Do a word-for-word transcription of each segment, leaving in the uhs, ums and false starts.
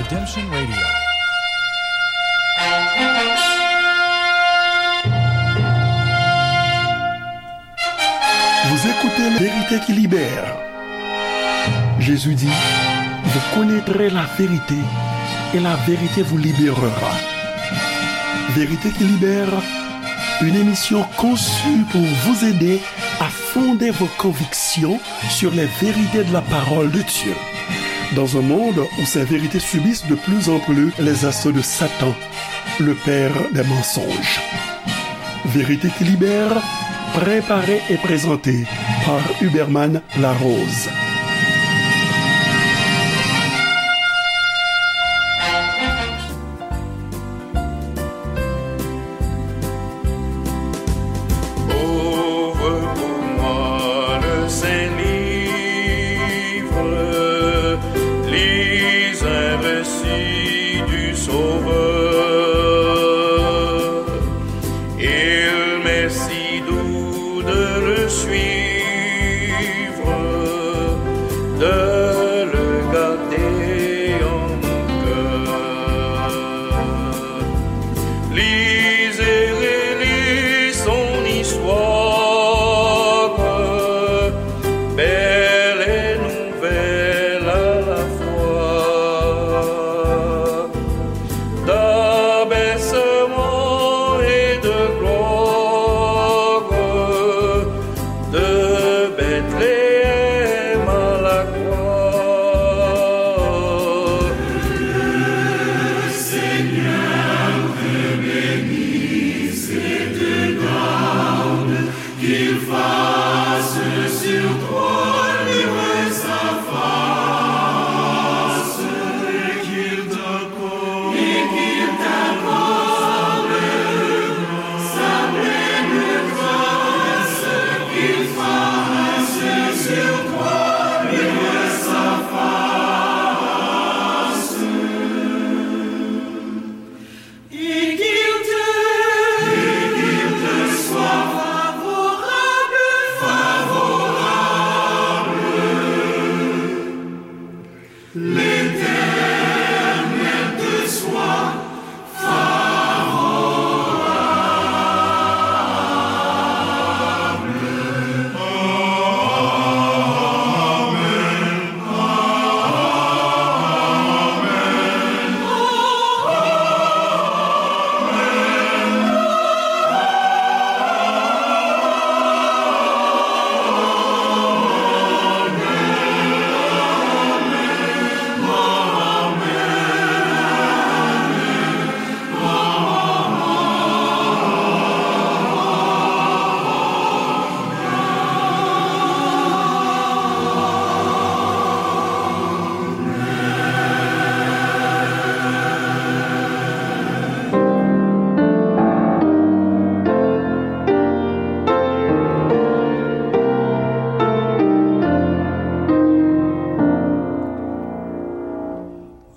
Redemption Radio. Vous écoutez Vérité qui libère. Jésus dit, vous connaîtrez la vérité et la vérité vous libérera. Vérité qui libère, une émission conçue pour vous aider à fonder vos convictions sur les vérités de la parole de Dieu. Dans un monde où ces vérités subissent de plus en plus les assauts de Satan, le père des mensonges. Vérité qui libère, préparée et présentée par Huberman Larose. Ouvre pour moi le saint livre, lis un récit du Sauveur. Il m'est si doux de le suivre, de le garder en mon cœur. Lis et relis son histoire, belle et nouvelle à la fois. D'abaissement et de gloire, de Bethléem à la croix. Le Seigneur te bénisse et te garde, qu'il fasse sur toi luire sa face, et qu'il t'accorde, et qu'il t'accorde sa pleine grâce, qu'il fasse sur toi luire sa face. Et qu'il te, et qu'il te soit favorable, favorable. L'Éternel te soit favorable. Amen.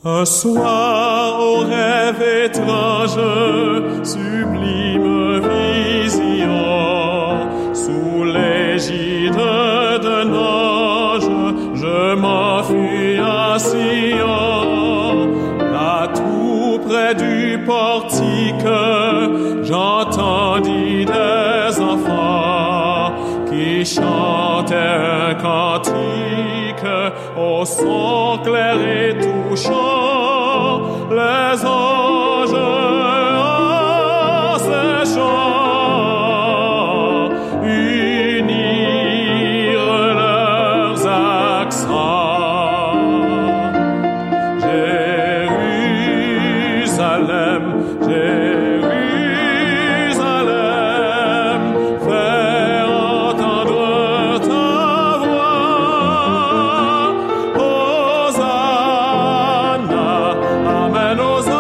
Un soir, au rêve étrange, sublime vision, sous l'égide d'un ange, je m'enfuis à Sion. Là, tout près du portique, j'entendis des enfants qui chantaient un cantique au son clair et touchant, les anges en ces chants unirent leurs accents. Jérusalem, Jérusalem, fais entendre ta voix. Hosanna, amen, Hosanna,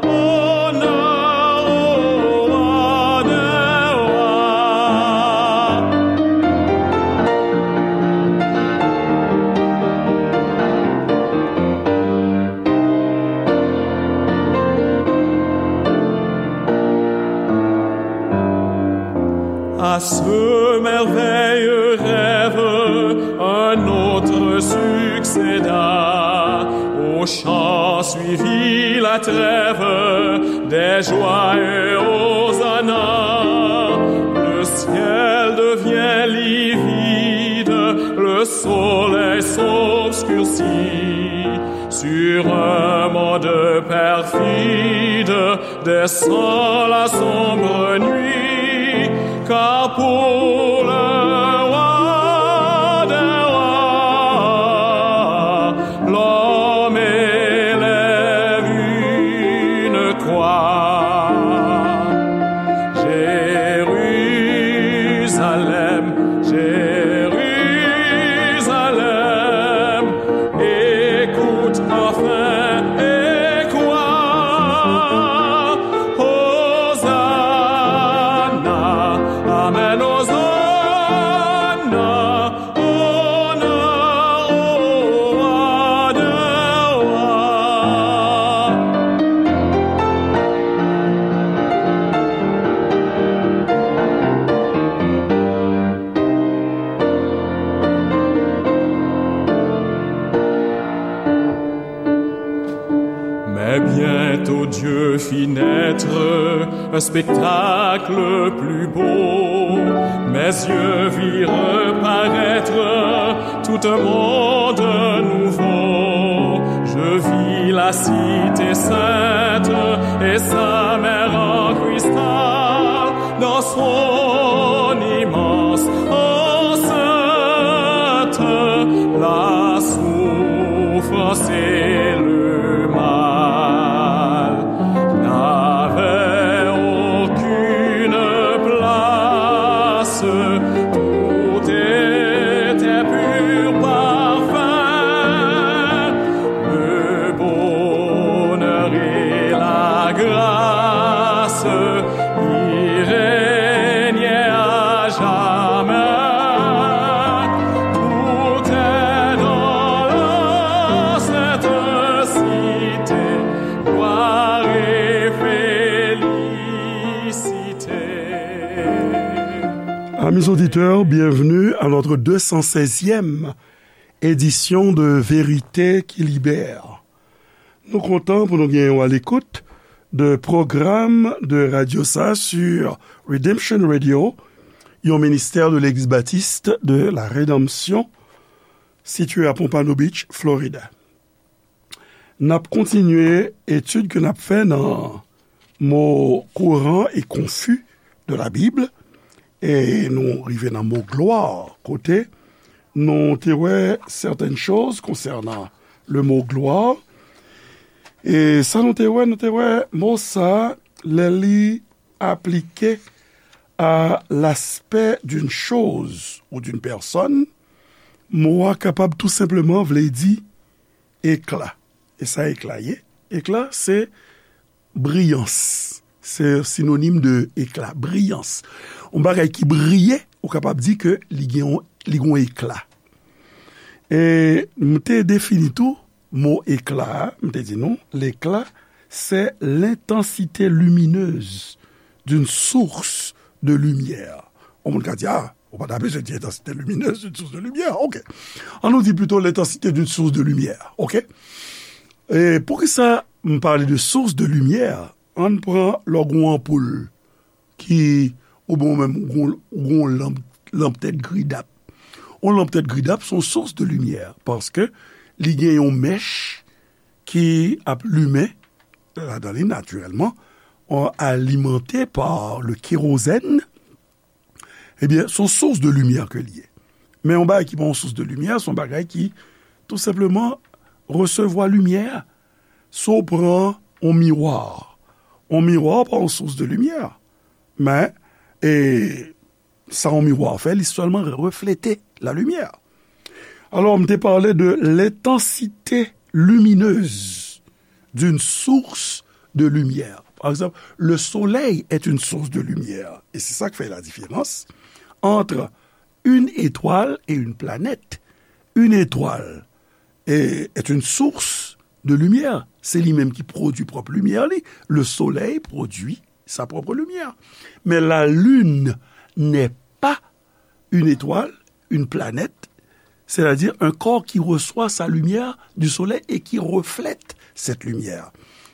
honneur au roi des rois. À ce merveilleux rêve, un autre succéda. Au chant suivit la trêve, des joyeux hosanna. Le ciel devient livide, le soleil s'obscurcit. Sur un monde perfide, descend la sombre nuit, car pour le roi des rois, l'homme élève une croix. Jérusalem, Jérusalem, écoute enfin et crois. Hosanna, amen, Hosanna, honneur au roi des rois. Mais bientôt Dieu fit naître un spectacle plus beau. Mes yeux virent paraître tout un monde nouveau. Je vis la cité sainte et sa mer en cristal. Dans son immense enceinte, la souffrance et le mal n'avaient aucune place. Tout était pur parfum, le bonheur et la grâce y régnait à jamais. Tout est dans la sainte cité, gloire et félicité. Amis auditeurs, bienvenue à notre deux cent seizième édition de Vérité qui libère. Nou kontan pou nou gen w a l'écoute de pwogram de radyo sa sur Redemption Radio, yon ministè de Legliz Batis de la Redanmsyon, sitiye a Pompano Beach, Florida. N ap kontinye etid ke n ap fè nan mo kouran e konfi de la Bib, e nou rive nan mo glwa, kote nou te wè sètèn choz konsènan le mo glwa. E sa nou te wè, nou te wè mo sa, lè li aplike à l'aspect d'une chose ou d'une personne, mo a kapab tou senpleman vle di ekla. E sa ekla ye? Ekla, se briyans. Se sinonim de ekla, briyans. Yon bagay ki briye, ou kapab di ke li gen yon, li gen yon ekla. E m te defini tou mo ekla a, m te di nou, l'éclat, c'est l'intensité lumineuse d'une source de lumière. Yon moun ka di, ah, ou pa ta bezwen di intensité lumineuse d'une source de lumière. Ok. An nou di plito l'intensité d'une source de lumière. Ok. E poukisa m pale de source de lumière? Ann pran lè w gen yon anpoul ki, oubyen ou menm ou gen yon, ou gen yon lanp, lanp tèt gridap. Yon lanp tèt gridap se yon source de lumière, paske li gen yon mèch ki ap limen ladan li natirèlman, euh, alimenté par le kérosène. Ebyen, se yon source de lumière ke li ye. Men yon bagay ki pa yon source de lumière, se yon bagay ki tou senpleman resevwa limyè. Si w pran yon miwa, yon miwa pa yon source de lumière. Men, e, sa yon miwa fè, li sèlman reflete la lumière. Alors, m te pale de l'intensité lumineuse d'une source de lumière. Par exemple, le soleil est une source de lumière. Et c'est ça qui fait la différence entre une étoile et une planète. Une étoile est, est une source de lumière. Se li menm ki pwodui pwòp limyè li. Le soleil produit sa propre lumière. Mais la lune n'est pas une étoile, une planète, c'est-à-dire un corps qui reçoit sa lumière du soleil et qui reflète cette lumière.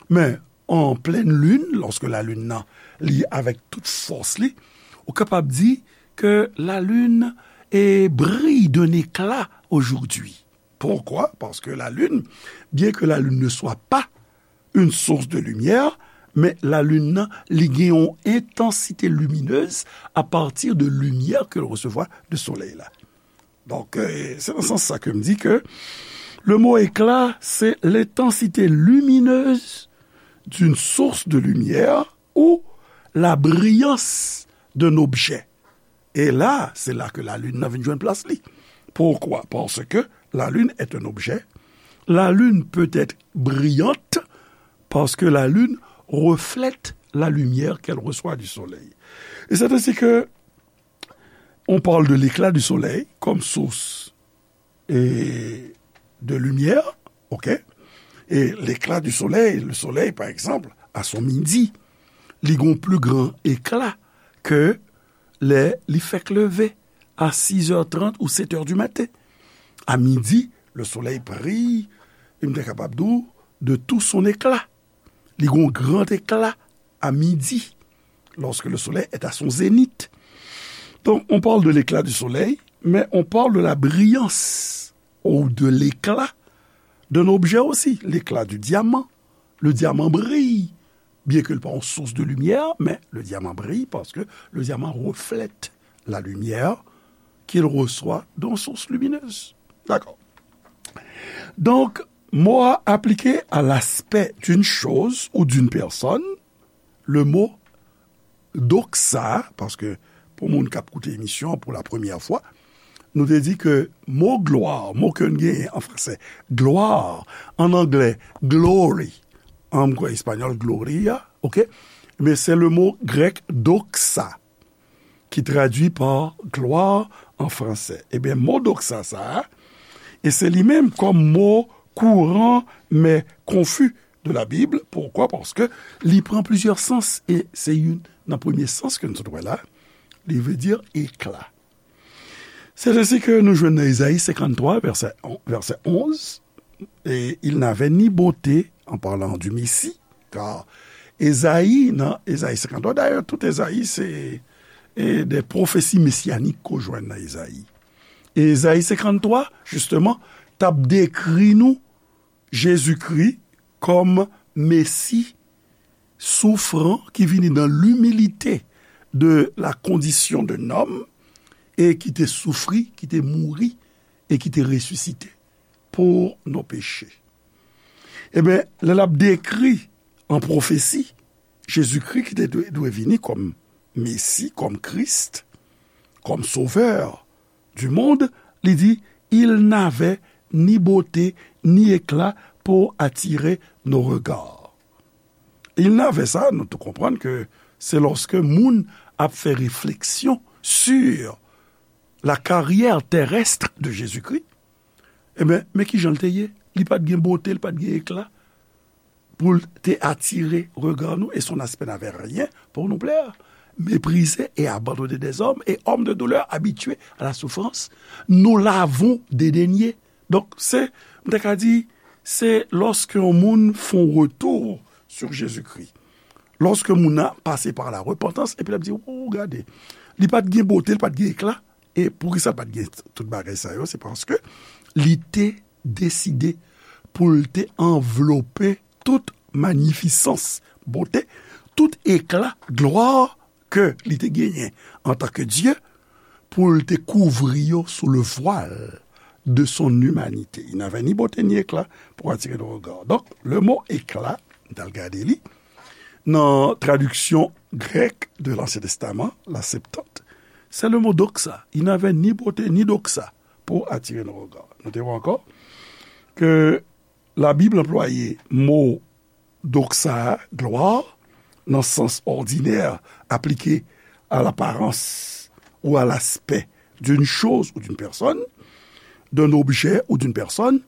Men, en pleine lune, lorsque la lune nan, li avèk tout fòs li, ou kapab di ke la lune est brille d'un éclat aujourd'hui. Pourquoi? Parce que la lune, bien que la lune ne soit pas une source de lumière, men la lune nan, li gen yon intensité lumineuse à partir de lumière que l resevwa de solèy la. Donk, euh, se nan sans sa ke m di ke le mot éclat, c'est l'intensité lumineuse d'une source de lumière ou la brillance d'un objet. Et là, c'est là que la lune nan vin jwenn plas li. Pourquoi? Parce que la lune est un objet. La lune peut être brillante parce que la lune reflète la lumière qu'elle reçoit du soleil. Et c'est ainsi que on parle de l'éclat du soleil comme source et de lumière, ok? Et l'éclat du soleil, le soleil, par exemple, à son midi, li gon plus grand éclat que lè li fèk leve à six heures trente ou sept heures du matin. À midi, le soleil brille, m te kapab di w, de tout son éclat. Li gon grand éclat à midi, lorsque le soleil est à son zénith. Donc, on parle de l'éclat du soleil, mais on parle de la brillance ou de l'éclat d'un objet aussi, l'éclat du diamant. Le diamant brille, bien que l pa yon source de lumière, mais le diamant brille parce que le diamant reflète la lumière qu'il reçoit d'une source lumineuse. D'accord. Donc, mo a aplike à l'aspect d'une chose ou d'une personne, le mot doxa, paske pou moun k ap koute emisyon an pou la premyè fwa, nou te di ke mo glwa, mo ke n genyen an franse, gloire, an anglè, glory, an m kwè espanyòl, gloria, ok? Men se le mo grèk doxa, ki tradui pa gloire an franse. Ebyen, mo doxa sa a, e se li menm kòm mo kouran men konfi de la Bible. Pourquoi? Paske li pran plizyè sans, e se youn nan premye sans ke nou sot wè la, li vle di éclat. C'est ainsi que nou jwenn nan Ezayi senkanntwa, vèsè on, vèsè onz, et il n'avait ni beauté, en parlant du Messie, car Ezayi, nan Ezayi senkanntwa, dayè, tout Ezayi, se, e, de pwofesi mesyanik ke w jwenn nan Ezayi. E Ezayi senkanntwa, jisteman, t ap dekri nou Jezikri kòm Mesi soufran ki vini dans l'humilité de la condition d'un homme e ki te soufri, ki te mouri e ki te resisite pour nos péchés. Ebyen, lè l ap dekri an pwofesi Jezikri ki te dwe, dwe vini kòm Mesi, kòm Kris, kòm Sovè du monde, li di, il n'avait ni beauté ni éclat pour attirer nos regards. Il n'avait sa, nou tou konprann ke se lòske moun ap fè refleksyon sur la carrière terrestre de Jésus-Christ, ebyen, men kijan l te ye? Li pa t gen bote, li pa t gen ekla pou l te atire rega nou, et son aspect n'avait rien pour nous plaire. Méprisé et abandonné des hommes, et homme de douleur, habitué à la souffrance, nous l'avons dédaigné. Donk, se, m ta ka di, se lòske yon moun fè yon retou sur Jésus-Christ, lòske moun nan pase pa la repantans, epi l ap di, o, gade, li pa t gen bote, li pa t gen ekla, e poukisa l pa t gen tout bagay sa yo? Se paske li te deside pou l te anvlope tout manifisans, bote, tout ekla, glwa ke li te genyen antanke Dye, pou l te kouvri yo sou le voile de son humanité. Il n'avait ni beauté ni éclat pour attirer nos regards. Donk, le mo ekla, m t al gade li, nan tradiksyon grèk de l'Ancien Testament, la Septante, c'est le mot doxa. Il n'avait ni beauté ni doxa pour attirer nos regards. Nou te wè ankò ke Labib anplwaye mo doxa, gloire, nan sans ordinaire appliqué à l'apparence ou à l'aspect d'une chose ou d'une personne, d'un objet ou d'une personne,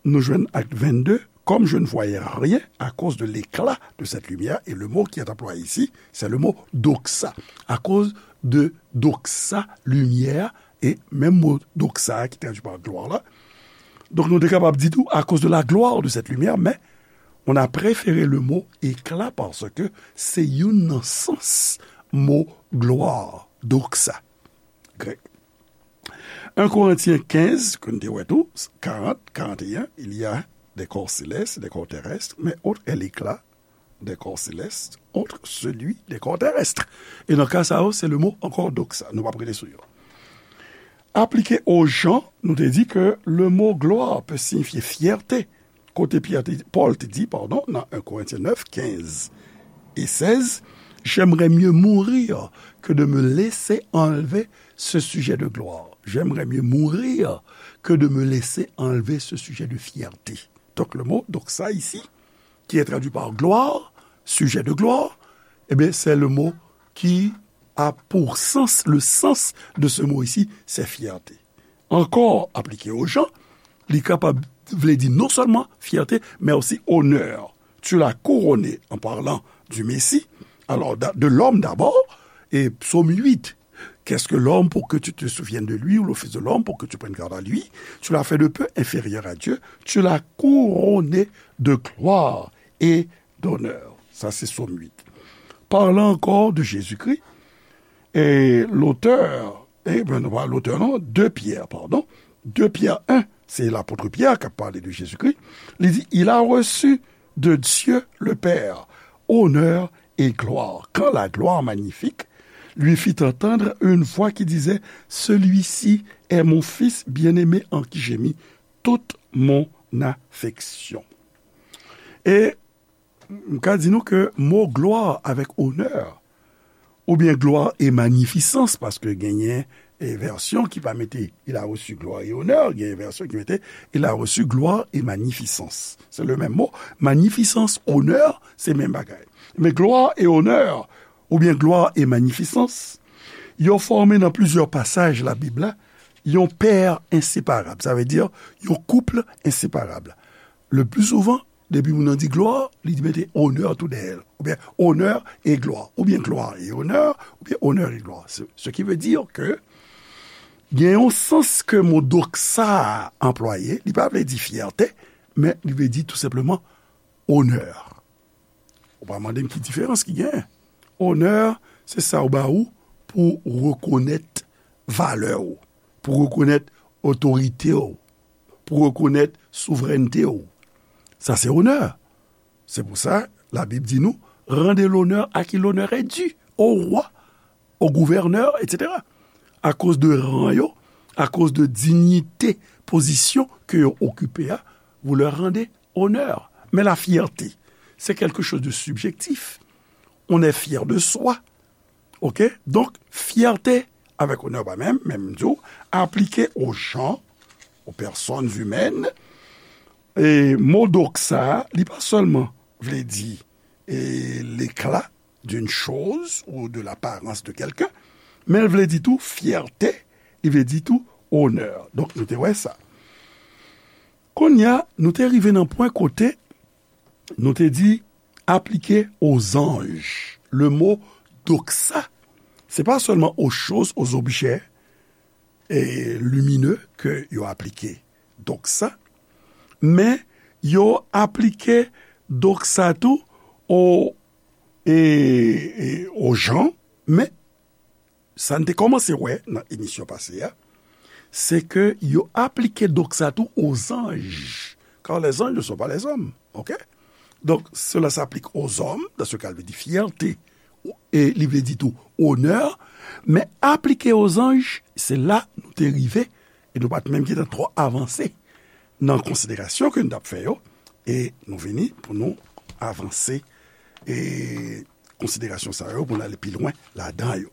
nou jwenn ak vennde, comme je ne voyais rien à cause de l'éclat de cette lumière, et le mot qui est employé ici, c'est le mot doxa, à cause de doxa, lumière, E menm mo doxa ki tradui pa glwa la, donk nou te kapab di tou à cause de la gloire de cette lumière, men on a préféré le mot éclat paske se youn nan sans mo glwa, doxa, grèk. En Korentyen kenz, ke n te wè tou, karant, karant e en, il y a des corps célestes, des corps terrestres, mais autre est l'éclat des corps célestes, autre celui des corps terrestres. E nan ka sa yo, se le mot encore doxa. Nou p ap rete sou yo. Aplike o jan, nou te di ke le mot gloire peut signifier fierté. Kote Pyè te, Pòl te di, padon, nan en Korentyen nèf, kenz e sèz, j'aimerais mieux mourir que de me laisser enlever ce sujet de gloire. J'aimerais mieux mourir que de me laisser enlever ce sujet de fierté. Donc le mot doxa ici, qui est traduit par gloire, sujet de gloire, eh bien, c'est le mot qui a pour sens, le sens de ce mot ici, c'est fierté. Encore appliqué aux gens, li kapab vle di non seulement fierté, mais aussi honneur. Tu l'as couronné en parlant du Messie, alors de l'homme d'abord, et psaume huit, qu'est-ce que l'homme pour que tu te souviennes de lui, ou le fils de l'homme pour que tu prennes garde à lui? Tu l'as fait de peu inférieur à Dieu, tu l'as couronné de gloire et d'honneur. Ça, c'est psaume huit. Parlant encore de Jésus-Christ, et l'auteur, eh ben, non, pas l'auteur, non, deux Pierre, pardon. Deux Pierre un, c'est l'apôtre Pierre qui a parlé de Jésus-Christ. Il dit, il a reçu de Dieu le Père honneur et gloire, quand la gloire magnifique lui fit entendre une voix qui disait, celui-ci est mon Fils bien-aimé en qui j'ai mis toute mon affection. E m ka di nou ke mo glwa avèk onè, oubyen gloire et magnificence, paske genyen e vèsyon ki pa mete il a reçu gloire et honneur, genyen vèsyon ki mete il a reçu gloire et magnificence. Se le menm mo. Magnificence, onè, se menm bagay. Men gloire et honneur, oubyen gloire et magnificence, yo fòme nan plizyè pasaj Labib la yon pè enseparab. Sa vle di yon koup enseparab. Le pli souvan, depi moun nan di glwa, li mete onè tou dèyè l. Oubyen onè e glwa. Oubyen glwa e onè, oubyen onè e glwa. Ce, ce qui veut dire que gen yon sans ke mo doxa a anplwaye, li pa vle di fyète, men li vle di tou senpleman onè. Ou pa mande m ki diferans ki genyen. Onè, se sa yo ba ou pou w rekonèt valè w, pou w rekonèt otorite w, pou w rekonèt souvrènte w. Sa se onè. Se pou sa, Labib di nou, rendez l'honneur à qui l'honneur est dû, au roi, au gouverneur, et cetera. Akoz de ran yo, akoz de dinyite, pozisyon ke yo okipe a, vous leur rendez honneur. Men la fierté, c'est quelque chose de subjectif. On est fier de soi. Ok? Donk, fyète avèk onè pa menm, men m di w, aplike aux gens, aux personnes humaines, e mo doxa a, li pa sèlman vle di e, l'éclat d'une chose ou de l'apparence de quelqu'un, men l vle di tou fyète, li vle di tou onè. Donk, nou te wè sa. Kounye a, nou te rive nan pwen kote nou te di aplike aux anges. Le mot doxa, se pa sèlman aux choses, aux objets e, lumineux ke yo aplike doxa, men yo aplike doxa tou o, e, e, aux gens, men sa n te kòmanse wè nan emisyon pase a, se ke yo aplike doxa tou aux anges, car les anges ne sont pas les hommes, ok? Donc, cela s'applique aux hommes, dans ce cas, il veut dire fierté, e li vle di tou onè, men aplike aux anges, se la nou te rive, e nou pa t menm gentan twò avanse nan konsiderasyon ke n t ap fè yo, e nou vini pou nou avanse, e konsiderasyon sa yo, pou n ale pi lwen ladan yo.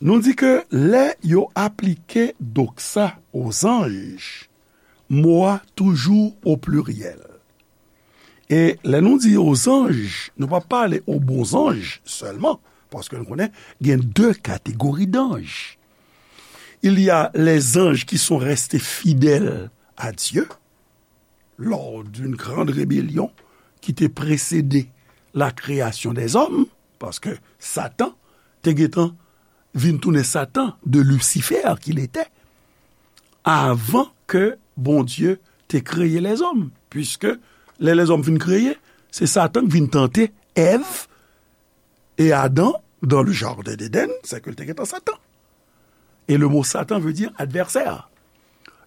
Nou di ke lè yo aplike doxa aux anges, mo a toujou o pliryèl. E lè nou di aux anges, nou pa pale aux bons anges sèlman, paske nou konnen gen de kategori d'anges. Il y a les anges qui sont restés fidèles à Dieu, lors d'une grande rébellion qui te précédait la création des hommes, paske Satan te gentan vin tounen Satan de Lucifer qu'il était, avan ke Bondye te kreye lèzòm, puiske lè lèzòm fin kreye, se Satan ki vin tante Èv e Adan dans le jardin d'Éden, se ke l te gentan Satan. E le mo Satan veut dire adversaire.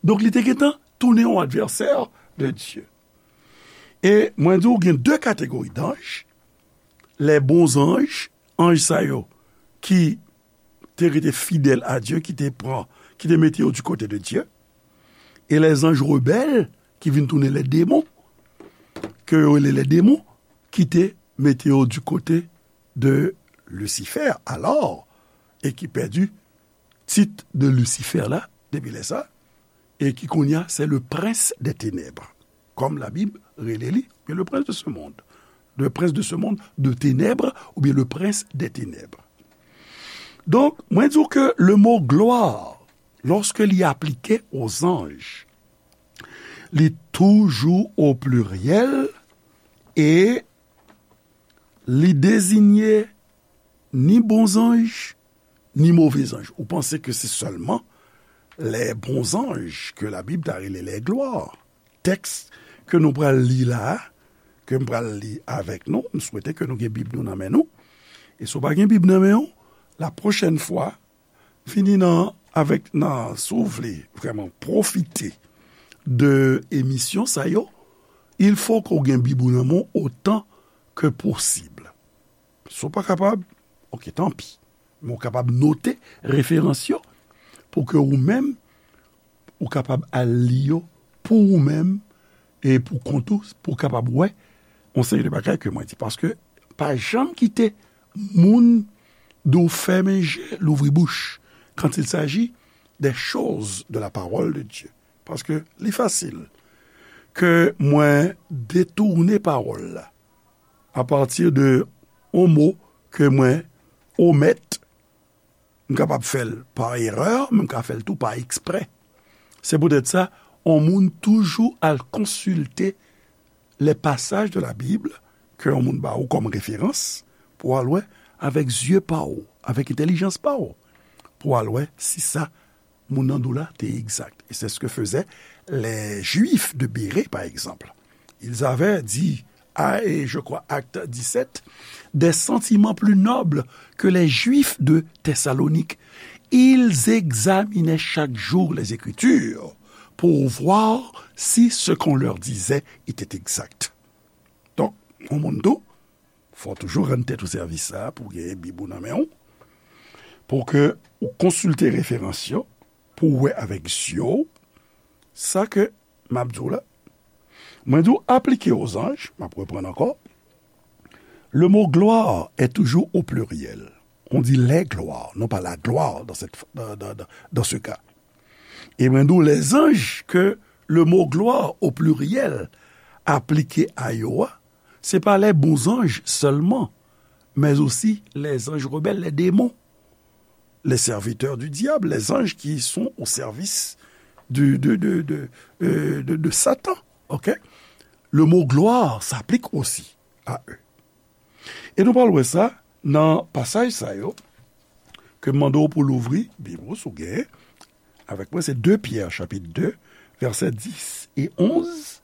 Donk, li te gentan tounen yon advèsè de Dye. E mwen di w, gen de kategori d'anges, les bons anges, anj sa yo ki te rete fidèl a Dye, ki te pran, ki te mete yo du côté de Dieu, e les anges rebelles, ki vin tounen les démons, ke yo rele les démons, ki te mete yo du côté de Lucifer, alors, e ki pèdi tit de Lucifer la, depi lè sa, e ki kounye a, c'est le prince des ténèbres, comme la Bible rele li, bien le prince de ce monde, le prince de ce monde de ténèbres, ou bien le prince des ténèbres. Donk, mwen di w ke le mo gloire, lorsque li aplike aux anges, li toujou o pliryèl e li deziye ni bon zanj, ni move zanj. Ou panse ke se sèlman les bons anges ke Labib ta rele les gloires. Tèks ke nou pral li la a, ke m pral li avèk nou, m swete ke nou gen Bib nou nan men nou. E si w pa gen Bib nan men w, la prochaine fois, vini nan, avèk, nan, si w vle vrèman pwofite de emisyon sa yo, il faut ke w gen Bib ou nan men w otan ke posib. Si w pa kapab, oke, tanpi. Men w kapab note referans yo pou ke ou menm, ou kapab al li yo pou ou menm e pou kont ou, pou w kapab wè yon seri de bagay ke mwen di. Paske pa janm kite moun di w fèmen je, louvri bouch, quand il s'agit des choses de la parole de Dieu. Paske li fasil ke mwen detounen pawòl la apati de yon mo ke mwen omèt, m kapab fè l pa erè, men m ka fè l tou pa eksprè. Se poutèt sa, yon moun toujou al konsilte les passages de la Bible ke yon moun ba ou kòm referans pou w al wè avèk zye pa w, avèk entèlijans pa w, pou w al wè si sa moun nan di w la te egzak. Et c'est ce que faisaient les Juifs de Bérée, par exemple. Ils avaient dit, ah, et je crois, acte dix-sept, des sentiments plus nobles que les Juifs de Thessalonique. Ils examinaient chaque jour les Écritures pour voir si ce qu'on leur disait était exact. Donk, yon moun tou, fò w toujou rann tèt ou sèvis sa a pou w genyen Bib ou nan men w, pou ke ou konsilte referans yo, pou w wè avèk zye w sa ke m ap di w la. Mwen di w aplike aux anges, m ap reprann ankò, le mot gloire est toujours au pluriel. On dit les gloires, non pas la gloire dans cette, dans, dans, dans, dans ce cas. E mwen di w, les anges ke le mo gloire au pluriel aplike a yo a, se pa les bons anges seulement, mais aussi les anges rebelles, les démons, les serviteurs du diable, les anges qui sont au service du, de, de, de, euh, de, de Satan. Ok? Le mot gloire s'applique aussi à eux. E nou pral wè sa nan pasaj sa yo ke m mande w pou louvri Bib ou, si w genyen, avèk mwen, se de Pyè, chapit de, vèsè dis e onz,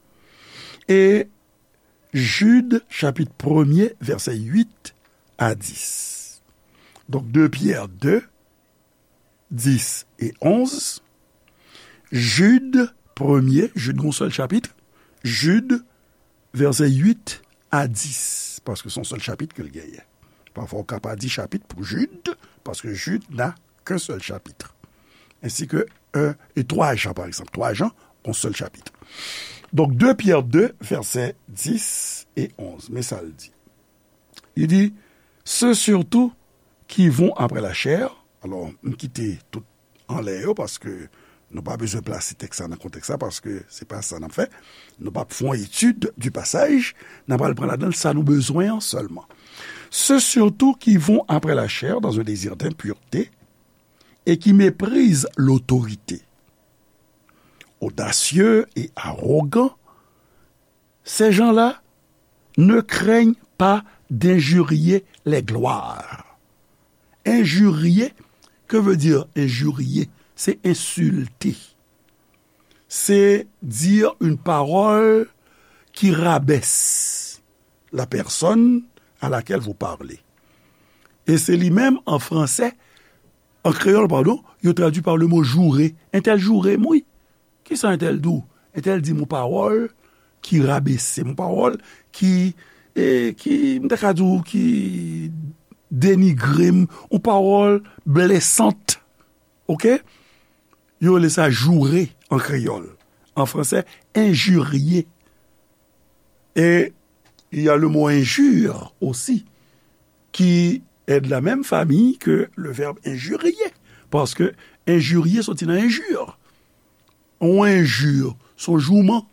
e Jid, chapit premye, vèsè uit a dis. Donk, de Pyè de, dis e onz, Jid premye, Jid gon sèl chapit, Jid, vèsè uit a dis, paske se yon sèl chapit ke l genyen. Pafwa, ou ka pa di chapit pou Jid, paske Jid n'a qu'un seul chapitre. Ainsi que un et trois Jean, par exemple. Twa Jan, yon sèl chapit. Donk, de Pyè de, vèsè dis e onz. Men sa l di. Li di, ceux surtout qui vont après la chair, alò, m kite tout anlè yo, paske nou pa bezwen plase tèks la nan kontèks la, paske se pa sa n ap fè. Nou p ap fè yon etid du pasaj, n ap al pran ladan l sa nou bezwen an sèlman. Ceux surtout qui vont après la chair dans un désir d'impureté et qui méprisent l'autorité. Audacieux et arrogants, ces gens-là ne craignent pas d'injurier les gloires. Injurier, Que veut dire injurier? C'est insulter. C'est dire une parole qui rabaisse la personne à laquelle vous parlez. E se li menm, an fransè, an kreyòl, padon, yo tradui pa le mo joure. Entèl joure m, wi. Kisa entèl di w? Entèl di m yon pawòl ki rabese m, yon pawòl ki, e, ki, m ta ka di w, ki denigre m, yon pawòl blesant. Oke? Yo rele sa joure an kreyòl. An fransè, injurier. Et il y a le mot injure aussi, qui est de la même famille que le verbe injurier. Paske injurier soti nan injure. Yon injure, se yon jouman.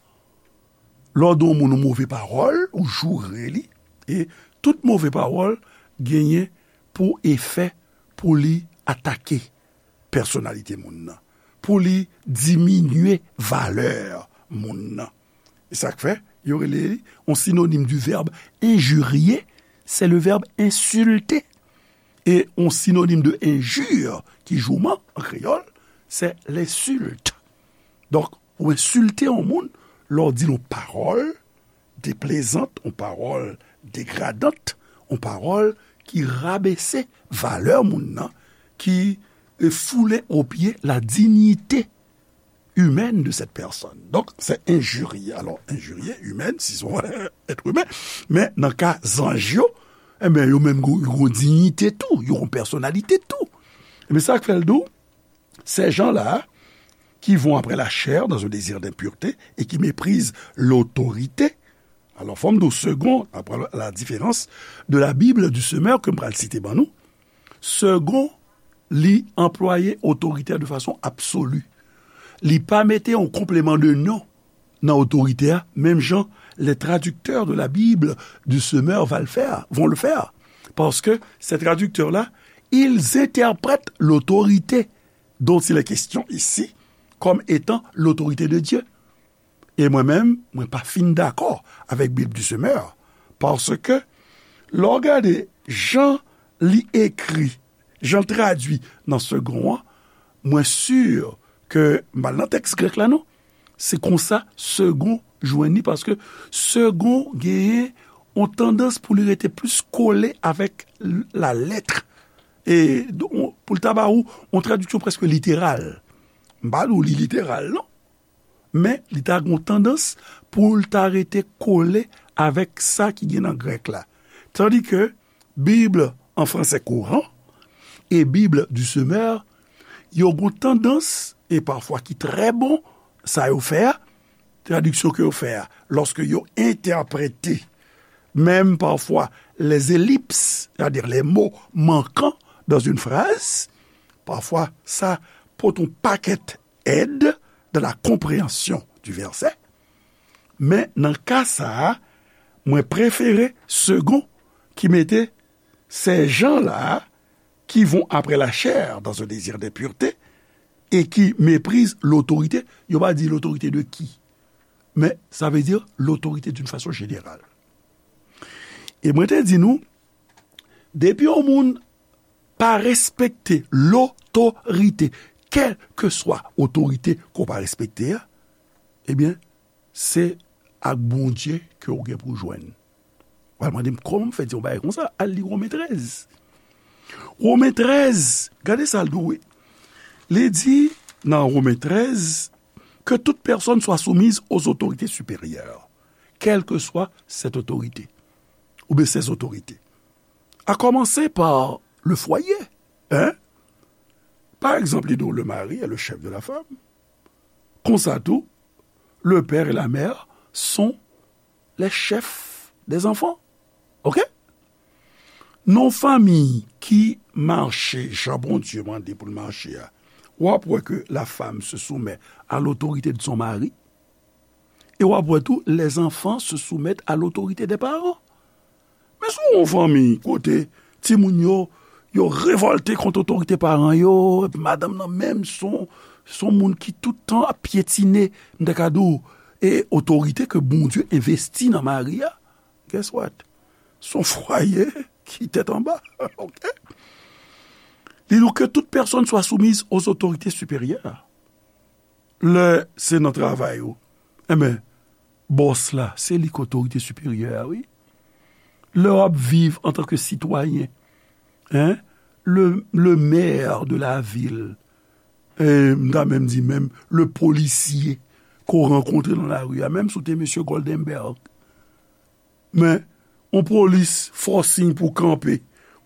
Lè w di yon moun yon move pawòl, ou joure li, e tout move pawòl genyen pou efè pou li atake pèsonalite moun nan, pou li diminye valè moun nan. E sa k fè, yo rele li yon sinonim du verbe injurier, c'est le verbe insulter. E yon sinonim de injure, ki jouman an kreyòl, c'est l'insulte. Donk, ou ensilte yon moun lè w di l yon pawòl deplezant, yon pawòl degradant, yon pawòl ki rabese valè moun nan, ki, e, foule o pye la dignité humaine de cette personne. Donc, c'est injurier. Alors, injurier, humaine, si c'est un être humain, mais dans le cas zanj yo, eh ben, yo menm, yo, yo gon dignité tou, yo gon personnalité tou. Mais ça fait le dos, ces gens-là qui vont après la chair dans un désir d'impureté et qui méprisent l'autorité. Alors, fò m di w, Segond, après la différence de la Bible du semeur ke m pral site ban nou, Segond, li anplwaye otorite a de fason absoli. Li pa mete yon konpleman de non nan otorite a, menm jan les traducteurs de la Bible du semeur va le faire, vont le faire. Parce que ces traducteurs-là, ils interprètent l'autorité dont il est question ici comme étant l'autorité de Dieu. E mwen menm, mwen pa fin dakò avèk Bib du semeur, paske lè w gade jan li ekri, jan l tradui nan Segond an, mwen si ke m pa nan tèks grèk la non, se konsa Segond jwenn li, paske Segond genyen yon tandans pou li rete plis kole avèk l-, la lèt. E don, pou l ta ba ou yon tradiksyon prèske literal. M pa di w li literal non. Men li ta gen yon tandans pou l ta rete kole avèk sa ki gen nan grèk la. Tandike Bib an fransè kouran e Bib du semeur, yo gen yon tandans, e pafwa ki trè bon, sa yo fè a, tradiksyon ke yo fè a, lòske yo entèprete menm pafwa les ellipses, c'est-à-dire les mots manquants dans une phrase, pafwa sa pote yon pakèt aide dans la compréhension du verset. Men nan ka sa a, mwen prefere Segond ki mete ces gens-là qui vont après la chair dans un désir d'impureté et qui méprisent l'autorité. Yo pa di l'autorité de qui, men sa vle di l'autorité d'une façon générale. E mwen te di nou, depi yon moun pa respekte lotorite, kèlkeswa otorite ke w pa respekte a, ebyen, se ak Bondye ke w gen pou w jwenn. W al mande m kòman m fè di yon bagay konsa, al li Women trèz. Women trèz, gade sa l di w wi. Li di nan Women trèz, que toute personne soit soumise aux autorités supérieures, quelle que soit cette autorité, ou bien ces autorités. À commencer par le foyer, hein? Par exemple, li di w, le mari est le chef de la femme. Konsa tou, le père et la mère sont les chefs des enfants. Oke? Nan yon fanmi ki mache jan Bondye mande pou l mache a, w ap wè ke la femme se soumet à l'autorité de son mari, e w ap wè tou les enfants se soumettent à l'autorité des parents. Men si w yon fanmi kote timoun yo, yo revòlte kont otorite paran yo, epi madanm nan menm se yon, se yon moun ki tout tan ap pyetine, m ta ka di w, e otorite ke Bondye envesti nan mari a, guess what? Se yon fwaye ki tèt anba, oke? Li di w, que toute personne soit soumise aux autorités supérieures. Lè se nan travay ou, enben, bòs la, se li k otorite siperyè a, wi. Lè w ap viv antanke sitwayen, en, le, le maire de la ville, e m ta menm di menm le polisye ke w rankontre nan lari a, menm si w te mesye Goldenberg, men yon polis fè w siy pou w kanpe.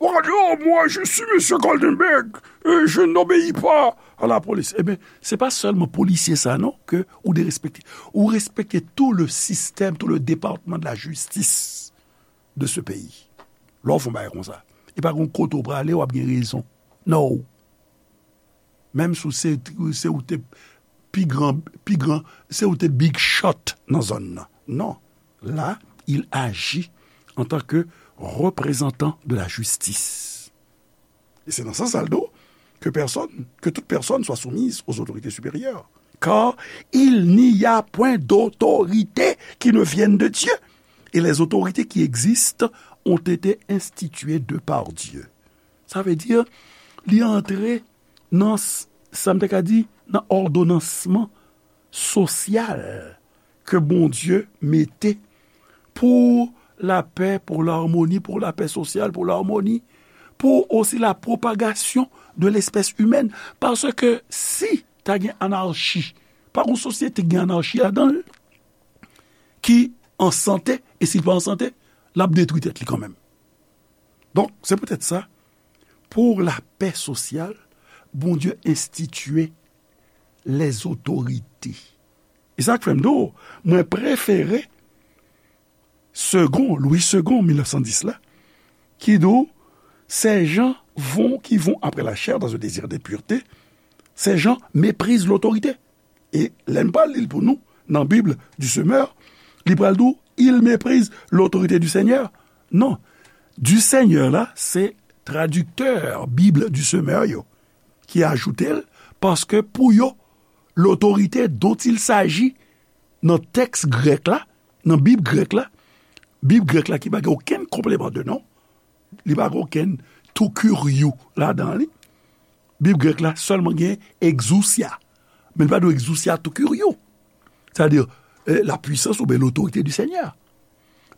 Ou ka di, oh, moi, je suis Monsieur Goldenberg, et je n'obéis pas à la police. Ebyen, se pa sèlman polisye sa, non, ke ou derespekte. Ou respekte tout le système, tout le département de la justice de ce pays. Lè w fè yon bagay konsa, e pa gen kote w prale, w ap gen rezon. Non. Menm si w se, se ou te pi gran, pi gran, se ou te big shot nan zòn nan. Non. Là, il agit en tant que représentant de la justice. E se nan sans sa l di w, que personne, que toute personne soit soumise aux autorités supérieures. Car il n'y a point d'autorité qui ne vienne de Dieu. Et les autorités qui existent ont été instituées de par Dieu. Sa vle di, li antre nan s-, sa m te ka di, nan òdonansman sosyal ke Bondye mete pour la paix, pour l'harmonie, pour la paix sociale, pour l'harmonie, pour aussi la propagation de l'espèce humaine. Paske si ta gen anarchi, pa gen sosyete ki gen anarchi ladan l, ki an sante, e si l pa an sante, l ap detwi tèt li kanmenm. Donk, se poutèt sa, pour la paix sociale, Bondye enstitiye les autorités. E sa k fè m di w, mwen prefere Segond, Louis Segond, mil nèf san dis la, ki di w, ces gens vont, qui vont après la chair dans un désir de pureté, ces gens méprisent l'autorité. E lè n pral li l pou nou, nan Bible du Semeur, li pral di w, il méprise l'autorité du Seigneur. Non. Du Seigneur la, se tradiktè Bible du Semeur yo ki ajoute l, paske pou yo, l'autorité dont il s'agit nan tèks grèk la, nan Bib grèk la, Bib grèk la ki pa gen okenn konpleman de non, li pa gen okenn to kuriou ladan li. Bib grèk la sèlman gen exousia, men li pa di w exousia to kuriou. Sa vle di, eh, la puissance oubyen l'autorité du Seigneur.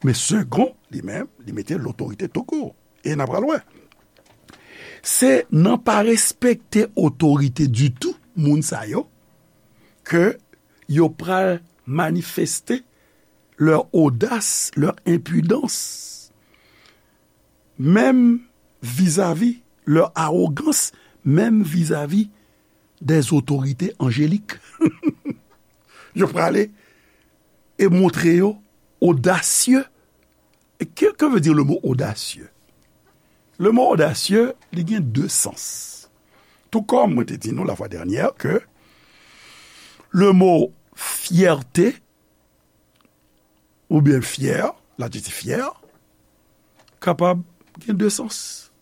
Men Segond, li menm, li mete l'autorité to court. E n a pral wè. Se nan pa respekte otorite ditou, moun sa yo, ke yo pral manifeste leur audace, leur impudence, même vis-à-vis, leur arrogance, même vis-à-vis des autorités angéliques. Yo prale e montre yo odasye. E que, que veut dire le mot audacieux? Le mot audacieux, li gen de sans. Tout comme mwen te di nou la fois dernière que le mot fierté oubyen fyè, ladjektif fyè, kapab gen de sans.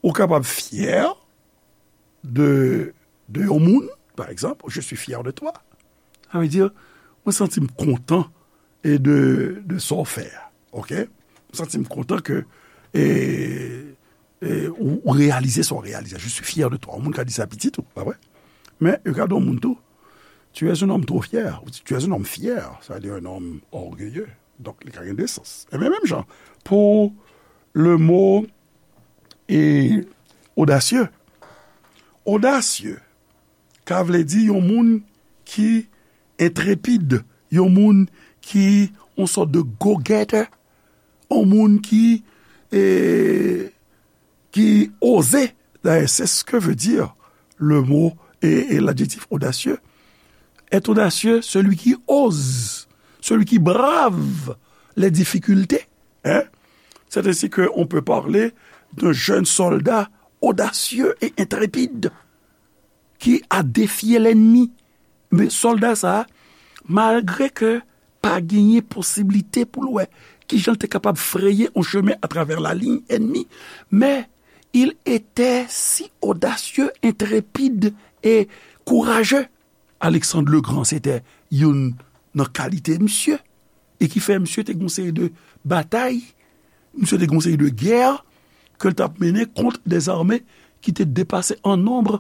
Ou kapab fyè de, de yon moun, pa egzanp, je suis fier de toi. Sa vle di, mwen santi m kontan e de, de sa w fè a. Oke? Mwen santi m kontan ke, e, e, ou, ou reyalize sa w reyalize. Je suis fier de toi. Yon moun ka di sa pitit ou, pa vre? Men, yo ka di yon moun tou, tu es un homme trop fier. Ou di, tu es un homme fier. Sa vle di un homme orgueilleux. Donk, li ka gen de sans. E men menm jan, pou le mot e odasye. Odasye ka vle di yon moun ki entrepid, yon moun ki yon sòt de go-getter, yon moun ki, e, ki oze. D'ailleurs, c'est ce que veut dire le mot et, et l'adjectif audacieux. Être audacieux, celui qui ose, celui qui brave les difficultés. Hein? C'est ainsi qu'on peut parler d'un jeune soldat audacieux et intrépide qui a défié l'ennemi. Men sòlda sa a, malgre ke pa genyen posiblite pou l wè kijan l te kapab freye yon chemen atravè laliy ènmi, men il était si audacieux, intrépide et courageux. Alexandre le Grand, se te youn nan kalite misye, e ki fè misye te gen yon seri de batay, misye te gen yon seri de gè ke l t ap mennen kont dèzame ki te depase an nonb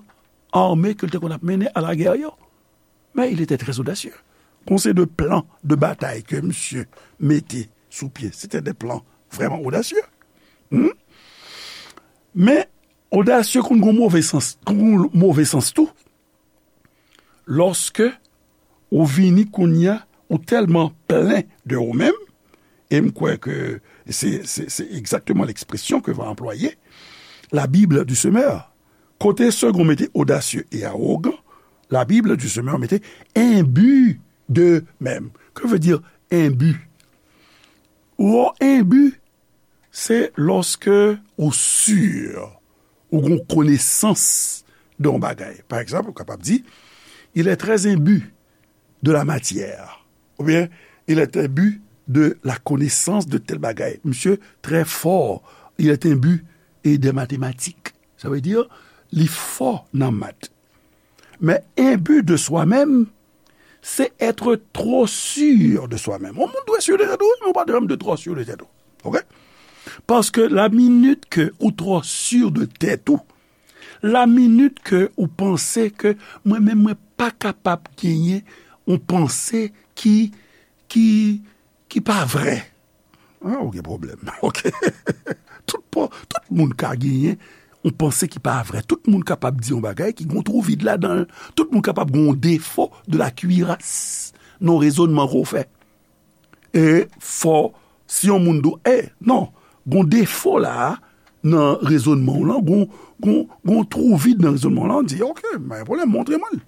ame ke l te konn ap mennen a lagè yo. Men il était très audacieux. Kon se de plan de batay ke misye mete sou pye, se te de plan vrèman odasye. Hmm? Men odasye konn gon move sans, konn gon move sans tou. Lòske ou vini kounye a, ou tèlman plen de ou menm, e m kwè ke se, se, se egzakteman lekspresyon ke va anplwaye, la Bible du semeur. Kote Segond mete audacieux et arrogant, la Bible du semeur mete imbu d'eux-mêmes. Que veut dire imbu? Ou imbu, se lòske ou si, ou gon konesans de yon bagay. Pa egzanp, ou kapab di, il est très imbu de la matière. Oubyen, il est imbu de la connaissance de tel bagay. Misye trè fò, il est imbu et des mathématiques. Sa vle di, li fò nan mat. Men imbu de soi-même, c'est être trop sûr de soi-même. Yon moun dwe si de tèt ou, men ou pa dwe janm de twò si de tèt ou. Oke? Paske la minit ke ou twò si de tèt ou, la minit ke ou panse ke mwen menm mwen pa kapab genyen yon panse ki, ki, ki pa vrè. Ah, ou gen pwoblèm. Oke. Tout, pa- tout moun ka genyen yon panse ki pa vrè. Tout moun kapab di yon bagay ki gon twou vid ladan l. Tout moun kapab gon defo de la cuirasse nan rezònman ke w fè. E fò, si yon moun di w, e, non, gon defo la a nan rezònman w lan, gon, gon, gon twou vid nan rezònman w lan, di, oke, pa gen pwoblèm, montre mwen l.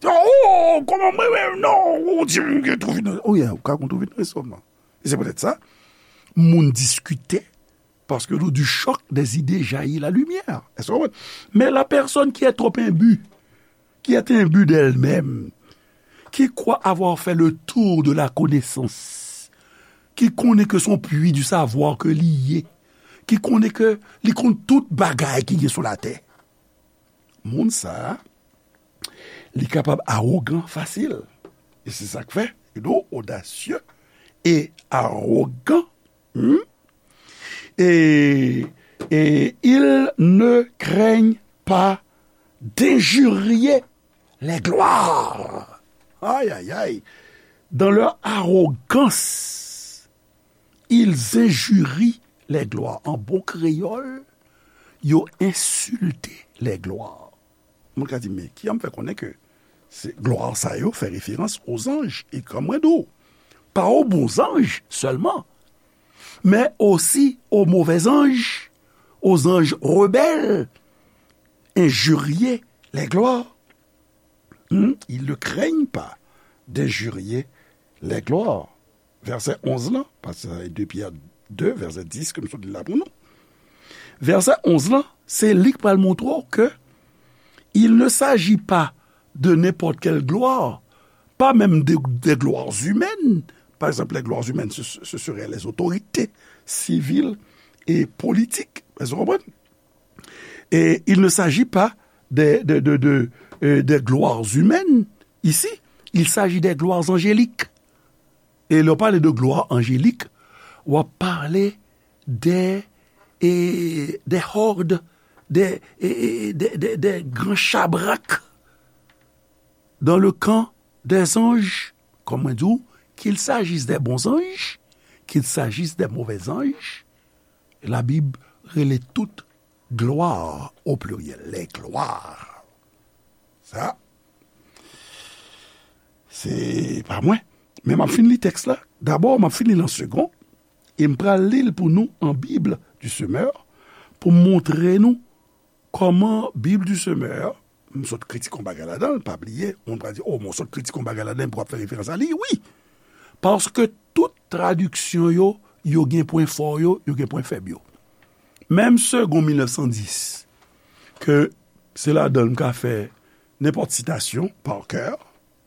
Oh, kòman mwen menm, non, ou di m gen twou vid nan, oh, yeah, ou ka gon twou vid nan rezònman. E se poutèt sa, moun diskite, parce que du choc des idées jaillit la lumière. Est-ce que vous comprenez? Mais la personne qui est trop imbue, qui est imbue d'elle-même, qui croit avoir fait le tour de la connaissance, ki konnen ke se yon pwi di savwa ke li ye, ki konnen ke li konn tout bagay ki gen sou latè. Moun sa a, li kapab awogan fasil. E se sa k fè, you know, audacieux et arrogant. Hmm? Et, et ils ne craignent pas d'injurier les gloires. Aïe, aïe, aïe. Dans leur arrogance, ils injurient les gloires. An bon kreyòl, yo ensilte les gloires. Moun ka di, men ki jan m fè konnen ke se glwa sa yo fè referans aux anges? E kòm mwen di w, pa aux bons anges seulement, mais aussi aux mauvais anges, aux anges rebelles, injurier les gloires. Hmm? Ils ne craignent pas d'injurier les gloires. Vèsè onz lan, paske sa se de Pyè de, vèsè dis ke m sot li la pou nou. Vèsè onz lan, se li k pral montre w ke il ne s'agit pas de n'importe quelle gloire, pas même des, des gloires humaines. Par exemple, les gloires humaines, ce, ce seraient les autorités civiles et politiques. Èske w konprann? Et il ne s'agit pas des, de, de, de, euh, des gloires humaines ici, il s'agit des gloires angéliques. E lè w pale de glwa anjelik, w ap pale de, e, de hòd, de, e, e, de, de, de gran chabrak dans le camp des anges, kòm mwen di w, qu'il s'agisse des bons anges, qu'il s'agisse des mauvais anges, la Bible rele tout glwa, au pluriel, les gloires. Sa, se pa mwen. Men m ap fin li tèks la. Dabò, m ap fin li l an segon. E m pral li l pou nou an Bible du Semeur, pou m montre nou kòman Bible du Semeur, m sot kritike yon bagay ladan l, pa bliye, moun pral di, o, mwen sot kritike yon bagay ladan, pou w ap fè referans a li, wi. Paske tout tradiksyon yo, yo gen pwen fò yo, yo gen pwen fèb yo. Menm Segond mil nèf san dis, ke se ladan l m ka fè nenpòt sitasyon, pa kè,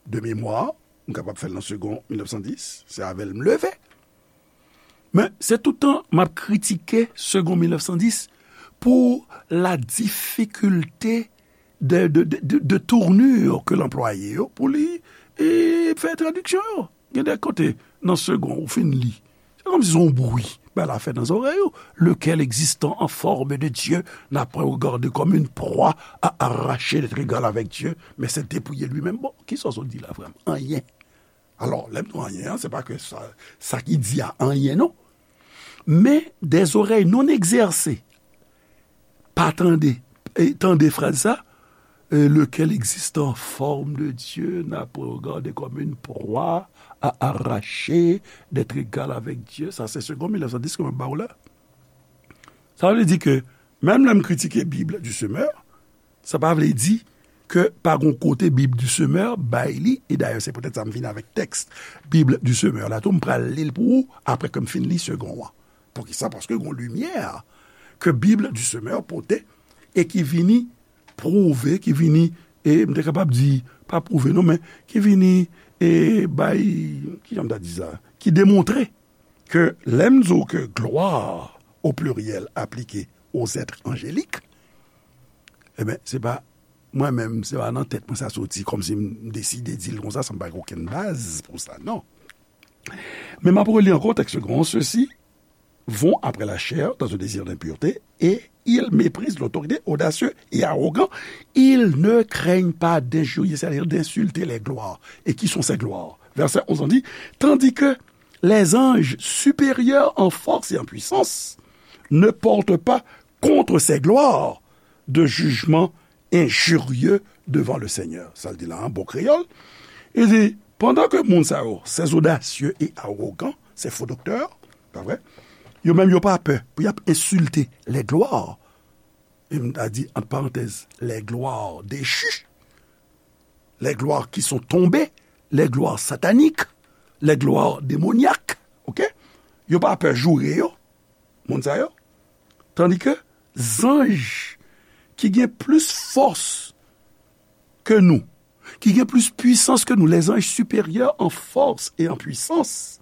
de memwa, m kapab fè l nan Segond mil nèf san dis, se avè l m leve. Men se toutan m ap kritike Segond mil nèf san dis pou la difikilte de, de, de, de, de tournure ke l anplwaye yo pou li, e, fè tradiksyon yo. Gen de kote nan Segond ou fin li, se Kòmsi se yon bri bagay la fè nan zòrèy ou. Lequel existant en forme de Dieu n'a point regardé comme une proie à arracher d'être égal avec Dieu, mais s'est dépouillé lui-même. Bon, kisa w sot di la vrèman? Anyen. Alò, lè m di anyen an, se pa ke sa, sa ki di a anyen, non. Men, des oreilles non exercées pa tande, e, tande fraz sa, euh, lequel existant en forme de Dieu n'a point regardé comme une proie à arracher d'être égal avec Dieu. Sa se Segond mil nèf san dis ke mwen ba w la. Sa vle di ke, menm lè m kritike Bib di Semè, sa pa vle di ke pa gon kote Bib di Semè bay li, e dayè se poutèt sa m vin avèk tèks Bib di Semè la tou, m pral li l pou ou apre ke m fin li Segond an. Poukisa? Paske gon limyè ke Bib di Semè pote e ki vini pwouve, ki vini, e m te kapab di, pa pwouve non, men ki vini, e bay, kijan m ta di sa, ki demontre ke lè m di w ke gloire au pluriel appliquée aux êtres angéliques, ebyen, se pa mwen menm, se pa nan tèt mwen sa soti, kòmsi m deside di l konsa, san m pa gen okenn baz pou sa, non. Men m ap reli ankò tèks Segond an, ceux-ci vont après la chair dans un désir d'impureté et ils méprisent l'autorité, audacieux et arrogants. Ils ne craignent pas d'injurier, c'est-à-dire d'insulter les gloires. Et qui sont ces gloires? Verset onze, on dit, tandis que les anges supérieurs en force et en puissance ne portent pas contre ces gloires de jugement injurieux devant le Seigneur. Sa l di la, an bon kreyòl. Li di, pandan ke moun sa yo, ces audacieux et arrogants, ces faux docteurs, pa vre? Yo menm, yo pa pè pou y ap ensilte les gloires. E m ta di, ant parantèz, les gloires déchues, les gloires qui sont tombées, les gloires sataniques, les gloires démoniaques, ok? Yo pa pè joure yo, moun sa yo. Tandi ke zanj ki gen plis fòs ke nou, ki gen plis pwisans ke nou, les anges supérieurs en force et en puissance,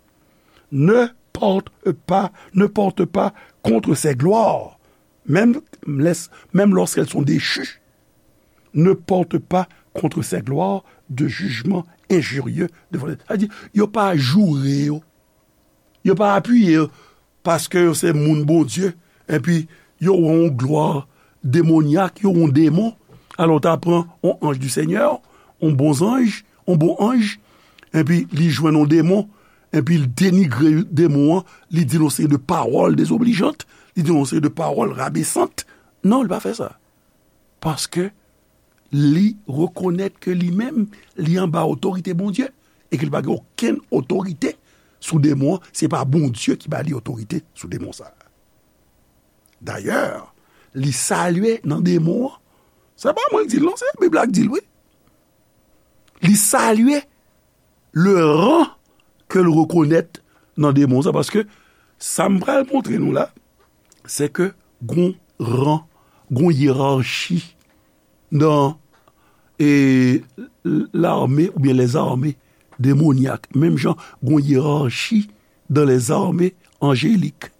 ne portent pas, ne portent pas contre ces gloires, même, même lorsqu'elles sont déchues, ne portent pas contre ces gloires de jugement injurieux devant les. Sa di, yo pa joure yo. Yo pa apiye yo paske yo se moun Bondye, epi yo wè yon glwa demonyak, yo wè yon demon. Alò, w ta pran yon anj di Senyè, yon bon zanj, yon bon anj, epi li jwenn yon demon, epi l denigre demon an, li di l yon seri de pawòl dezoblizant, li di l yon seri de pawòl rabesant. Non, li pa fè sa. Paske li rekonèt ke li menm, li anba otorite Bondye, e ke li pa gen okenn otorite sou demon an, se pa Bondye ki ba li otorite sou demon sa a. Dayè, li salye nan demon an. Se pa mwen k di l non, se Bib la k di l, wi. Li salye le ran ke l rekonèt nan demon sa, paske sa m pral montre nou la, se ke gon ran, gon yerachi nan, e, lame oubyen lèzame demonyak. Menm jan gon yerachi dan lèzame anjelik.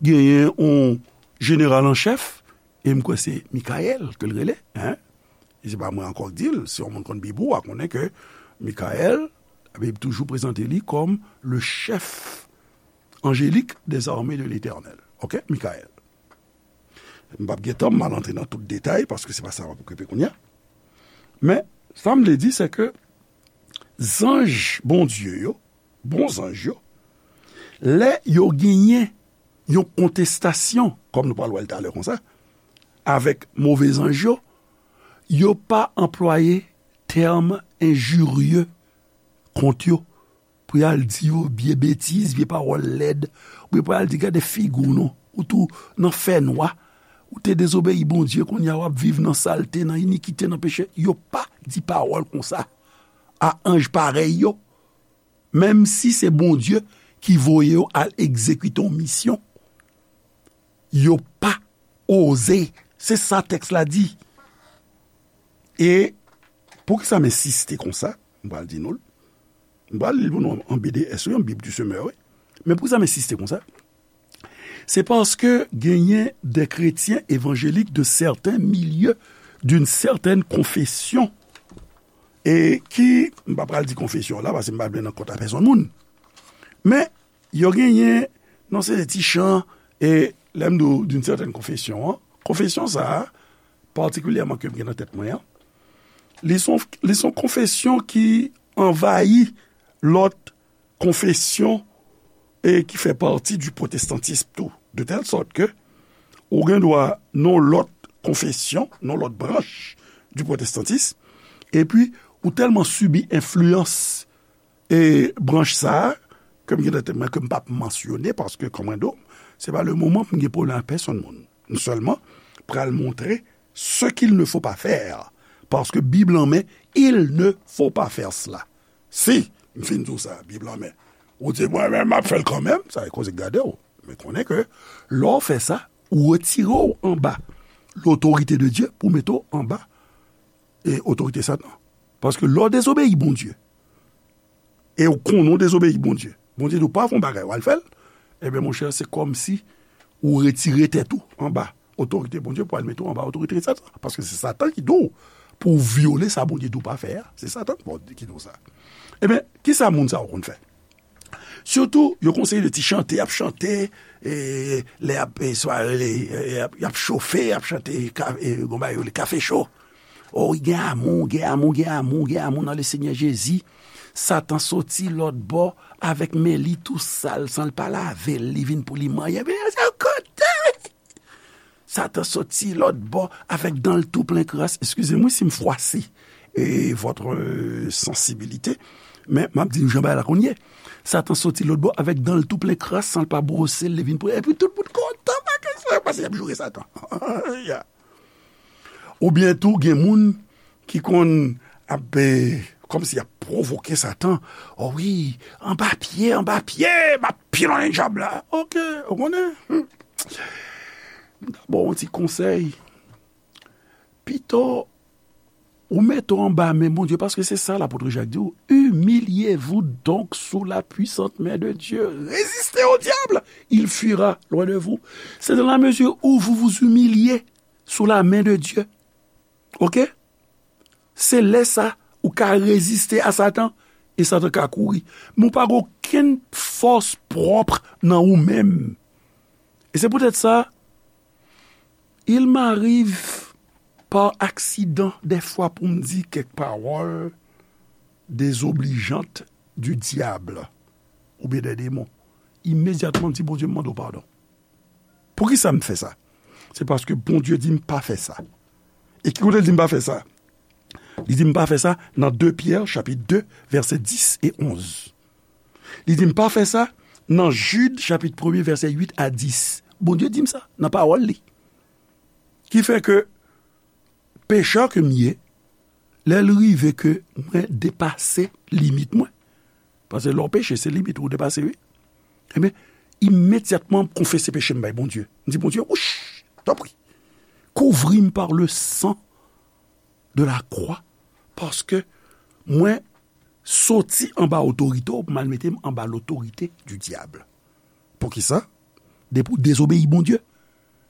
Genyen yon jeneral an chèf, e m kwè se Mikayèl ke l rele, en. E se pa mwen ankò k di l, si yon moun konn Bib ou, w a konnen ke Mikayèl, Labib toujou prezante li kòm le chef angélique des armées de l'Éternel. Ok, Mikayèl. M p ap gen tan, m al antre nan tout detay, paske se pa sa m ap okipe kounye a. Men, sa m vle di, se ke zanj Bondye yo, bon zanj yo, lè yo genyen yon kontestasyon, kòm nou pral wè l talè konsa, avèk move zanj yo, yo pa anplwaye tèm enjirye kont yo, pou y al di yo vye betiz, vye pawòl lèd, oubyen pou y al di, "Gade figi w non, ou tou nan fènwa, ou te dezobeyi Bondye, kounye a w ap viv nan salte, nan inikite, nan peche." Yo pa di pawòl konsa a anj parèy yo, menm si se Bondye ki voye yo al egzekite yon misyon. Yo pa oze. Se sa tèks la di. E poukisa m ensiste konsa? M pral di nou l. M pral li l pou nou an B D S, wi, an Bib di Semè, wi. Men poukisa m ensiste konsa? Se paske genyen de kretyen evanjelik de sèten milye, d'une certaine confession, e ki, m pa pral di konfesyon la, paske m pa vle nan kont a pèsonn moun. Men, yo genyen, non, se de ti chan, e lè m di w d'une certaine confession an, konfesyon sa a, patikilyèman ke m gen nan tèt mwen an, li se yon, li se yon konfesyon ki anvayi lòt konfesyon e ki fè pati du protestantisme tou. De tèl sòt ke ou gen dwa nan lòt konfesyon, nan lòt branch du protestantisme, epi ou tèlman sibi enfliyans e branch sa a, ke m gen nan tèt mwen ke m p ap mansyone, paske, kòm mwen di w, se pa le moman pou m gen pwoblèm ak pèsonn moun. M sèlman pral montre ce qu'il ne faut pas faire. Paske Bib lan men, il ne faut pas faire cela. Si, m fin di w sa, Bib lan men, ou di, "Mwen menm, m ap fè l kanmenm," sa e koze k gade w. Men konnen ke lè w fè sa, ou retire w anba lotorite de Dye pou mete w anba e otorite Satan. Paske lè w dezobeyi Bondye, e w konnen w dezobeyi Bondye, Bondye di w pa fè yon bagay, w al fè l, ebyen, monchè, se kòmsi ou retire tèt ou anba otorite Bondye pou al mete w anba otorite Satan. Paske se Satan ki di w pou w vyole sa Bondye di w pa fè a. Se Satan ki di w sa. Ebyen, kisa moun sa yo konn fè? Sitou, yo konseye de ti chante, y ap chante, e, lè y ap, e, sware, e, y ap, y ap chofe, y ap chante ka-, e, gon bagay yo rele kafe cho. O, gen amou, gen amou, gen amou, gen amou nan le Senyè Jezi. Satan soti lòt bò avèk men li tou sal, san l pa lave l, li vin pou li manyen. Men se kote! Satan soti lòt bò avèk dan l tou plen kras. Eskize m wi si m fwase, e, votre, e, sensibilité, men m ap di nou jan bagay la konn ye. Satan soti lòt bò avèk dan l tou plen kras, san l pa bwose l, li vin pou, epi tout moun kontan, pa kesyon, paske y ap joure Satan. Ya. Oubyen tou, gen moun ki konn ap, e, kòmsi y ap pwovoke Satan. O wi, anba pye, anba pye, m ap pilonn dyab la. Oke, ou konnen. Hmm. M ta ba w yon ti konsèy. Pito ou mete w anba men Bondye, paske se sa lapot Jak di w, humiliez-vous donc sous la puissante main de Dieu. Résistez au diable, il fuira loin de vous. C'est dans la mesure où vous vous humiliez sous la main de Dieu. Oke? Se lè sa ou ka reziste a Satan, e Satan ka kouri. Men ou pa gen okenn fòs pwòp nan ou menm. E se poutèt sa, il m'arrive par accident dèfwa pou m di kèk pawòl dezoblijant du diable oubyen dè demon. Imedyatman, m di, "Bondye, m mande w padon." Poukisa m fè sa? Se paske Bondye di m pa fè sa. E ki kote l di m pa fè sa? Li di m pa fè sa nan de Pyè, chapit de, vèsè dis e onz. Li di m pa fè sa nan Jid, chapit premye, vèsè uit a dis. Bondye di m sa nan pawòl li. Ki fè ke pechè ke m ye, lè l rive ke mwen depase limit mwen, paske lè w peche, se limit ou depase, wi. Ebyen, imedyatman, m konfese peche m bay Bondye. M di, "Bondye, wouch, tanpri, kouvri m par le sang de la croix, paske mwen soti anba otorite w pou m al mete m anba lotorite du diable." Poukisa? Depi w dezobeyi Bondye,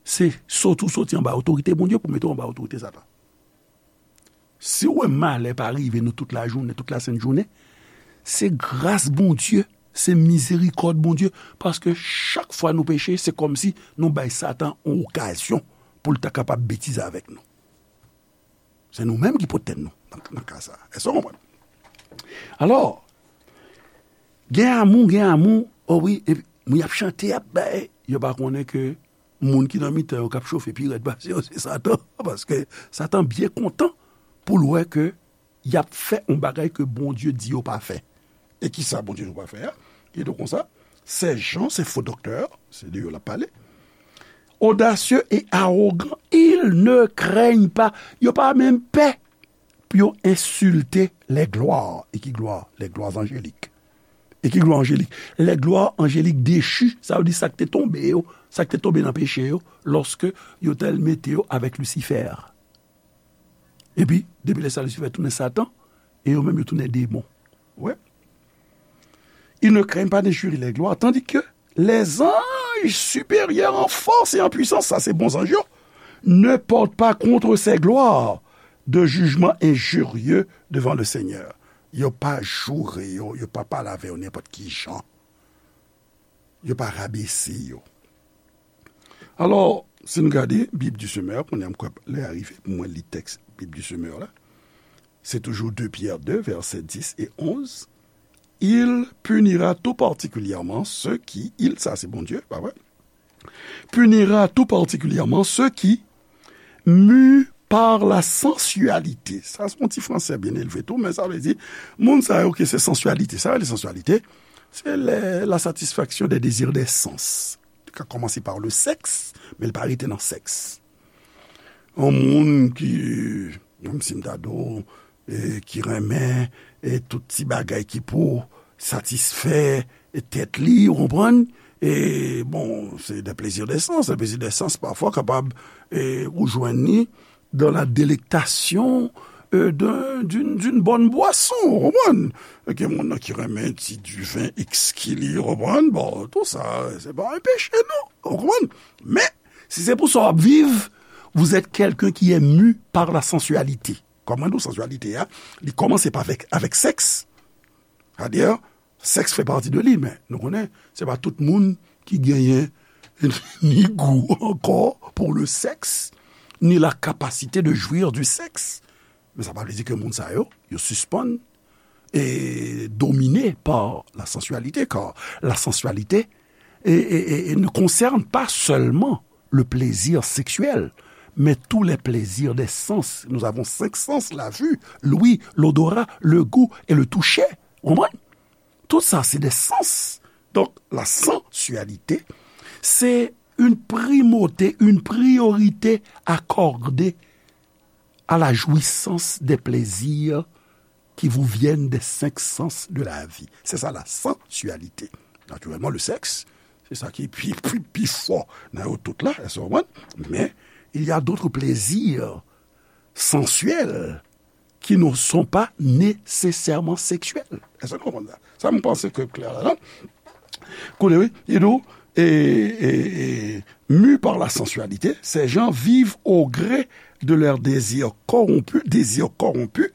se soti w soti anba otorite Bondye pou mete w anba otorite Satan. Si w wè malè pa rive nou tout lajounen, tout lasent jounen, se gras Bondye, se mizerikòd Bondye, paske chak fwa nou peche, se kòmsi nou bay Satan yon okazyon pou l ta kapab betize avèk nou. Se nou menm ki pote tèt nou nan, nan ka sa a. Èske w konprann? Alò, gen amou, gen amou, o wi, epi moun y ap chante, y ap bay, yo pa konnen ke moun ki nan mitan yo k ap chofe pi rèd pase yo, se Satan. Paske Satan byen kontan pou l wè ke y ap fè yon bagay ke Bondye di yo pa fè. E kisa Bondye di yo pa fè a? Li di konsa, ces gens, ces faux docteurs, se de yo l ap pale, audacieux et arrogants, ils ne craignent pas. Yo pa menm pè pou yo ensilte les gloires. E ki glwa? Les gloires angéliques. E ki glwa anjelik? Les gloires angéliques déchues, sa vle di sa k te tonbe yo, sa k te tonbe nan peche yo, lòske yo t al mete yo avèk Lisifè. Epi, depi lè sa, Lisifè tounen Satan, e yo menm yo tounen demon. Wè. Ils ne craignent pas d'injurier les gloires, tandis que les anges supérieurs en force et en puissance, sa se bon zanj yo, ne portent pas contre ces gloires de jugement injurieux devant le Seigneur. Yo pa joure yo, yo pa pale avè yo nenpòt ki jan. yo pa rabese yo. Alò, si n gade Bib di Semè, kounye a m kwè lè a rive pou mwen li tèks Bib di Semè la. Se toujou de Pyè de, vèsè dis e onz. Il punira tout particulièrement ceux qui, il, sa se Bondye, pa vre? Punira tout particulièrement ceux qui, mus par la sensualité. Sa se yon ti fransè byen elve tou, men sa vle di, moun sa yo ke se sansyalite. Sa yo rele sansyalite, se lè la satisfaction des désirs des sens. Li ka kòmanse par le sexe, men li pa rete nan sèks. Yon moun ki, menm si m ta di w, e, ki renmen, e, tout ti bagay ki pou satisfè tèt li, ou konprann? E, bon, se de plezi de sans. Le plezi de sans, pafwa, kapab, e, ou jwenn li dans la délectation, e, d'un, d'une, d'une bonne boisson, ou konprann? Gen moun nan ki renmen ti diven ekski li, ou konprann? Bon, tout sa, se pa yon peche, non, ou konprann? Men, si se pou sa w ap viv, vous êtes quelqu'un qui est mu par la sensualité. Kòm mwen di w, sansyalite a, li kòmanse pa avèk, avèk sèks. Sètadi, sèks fè pati de li, men nou konnen, se pa tout moun ki genyen ni gou ankò pour le sexe, ni la capacité de jouir du sexe. Men sa pa vle di ke moun sa yo, yo sispann e domine par la sensualité, car la sensualité et, et, et, et ne concerne pas seulement le plaisir sexuel, mais tous les plaisirs des sens. Nous avons cinq sens, la vue, l'ouïe, l'odorat, le goût et le toucher. Ou konprann? Tout sa, se de sans. Donk, la sensualité, c'est une primauté, une priorité accordée à la jouissance des plaisirs qui vous viennent des cinq sens de la vie. C'est ça la sensualité. Naturellement, le sexe, c'est ça qui est plus, plus, plus fort dans tout là, elles sont bonnes, mais il y a d'autres plaisirs sensuels qui ne sont pas nécessairement sexuels. Est-ce que vous comprenez ça? Ça me pense que clair là, non? Koute, wi, li di, et, et, et, mus par la sensualité, ces gens vivent au gré de leurs désirs corrompus, désirs corrompus,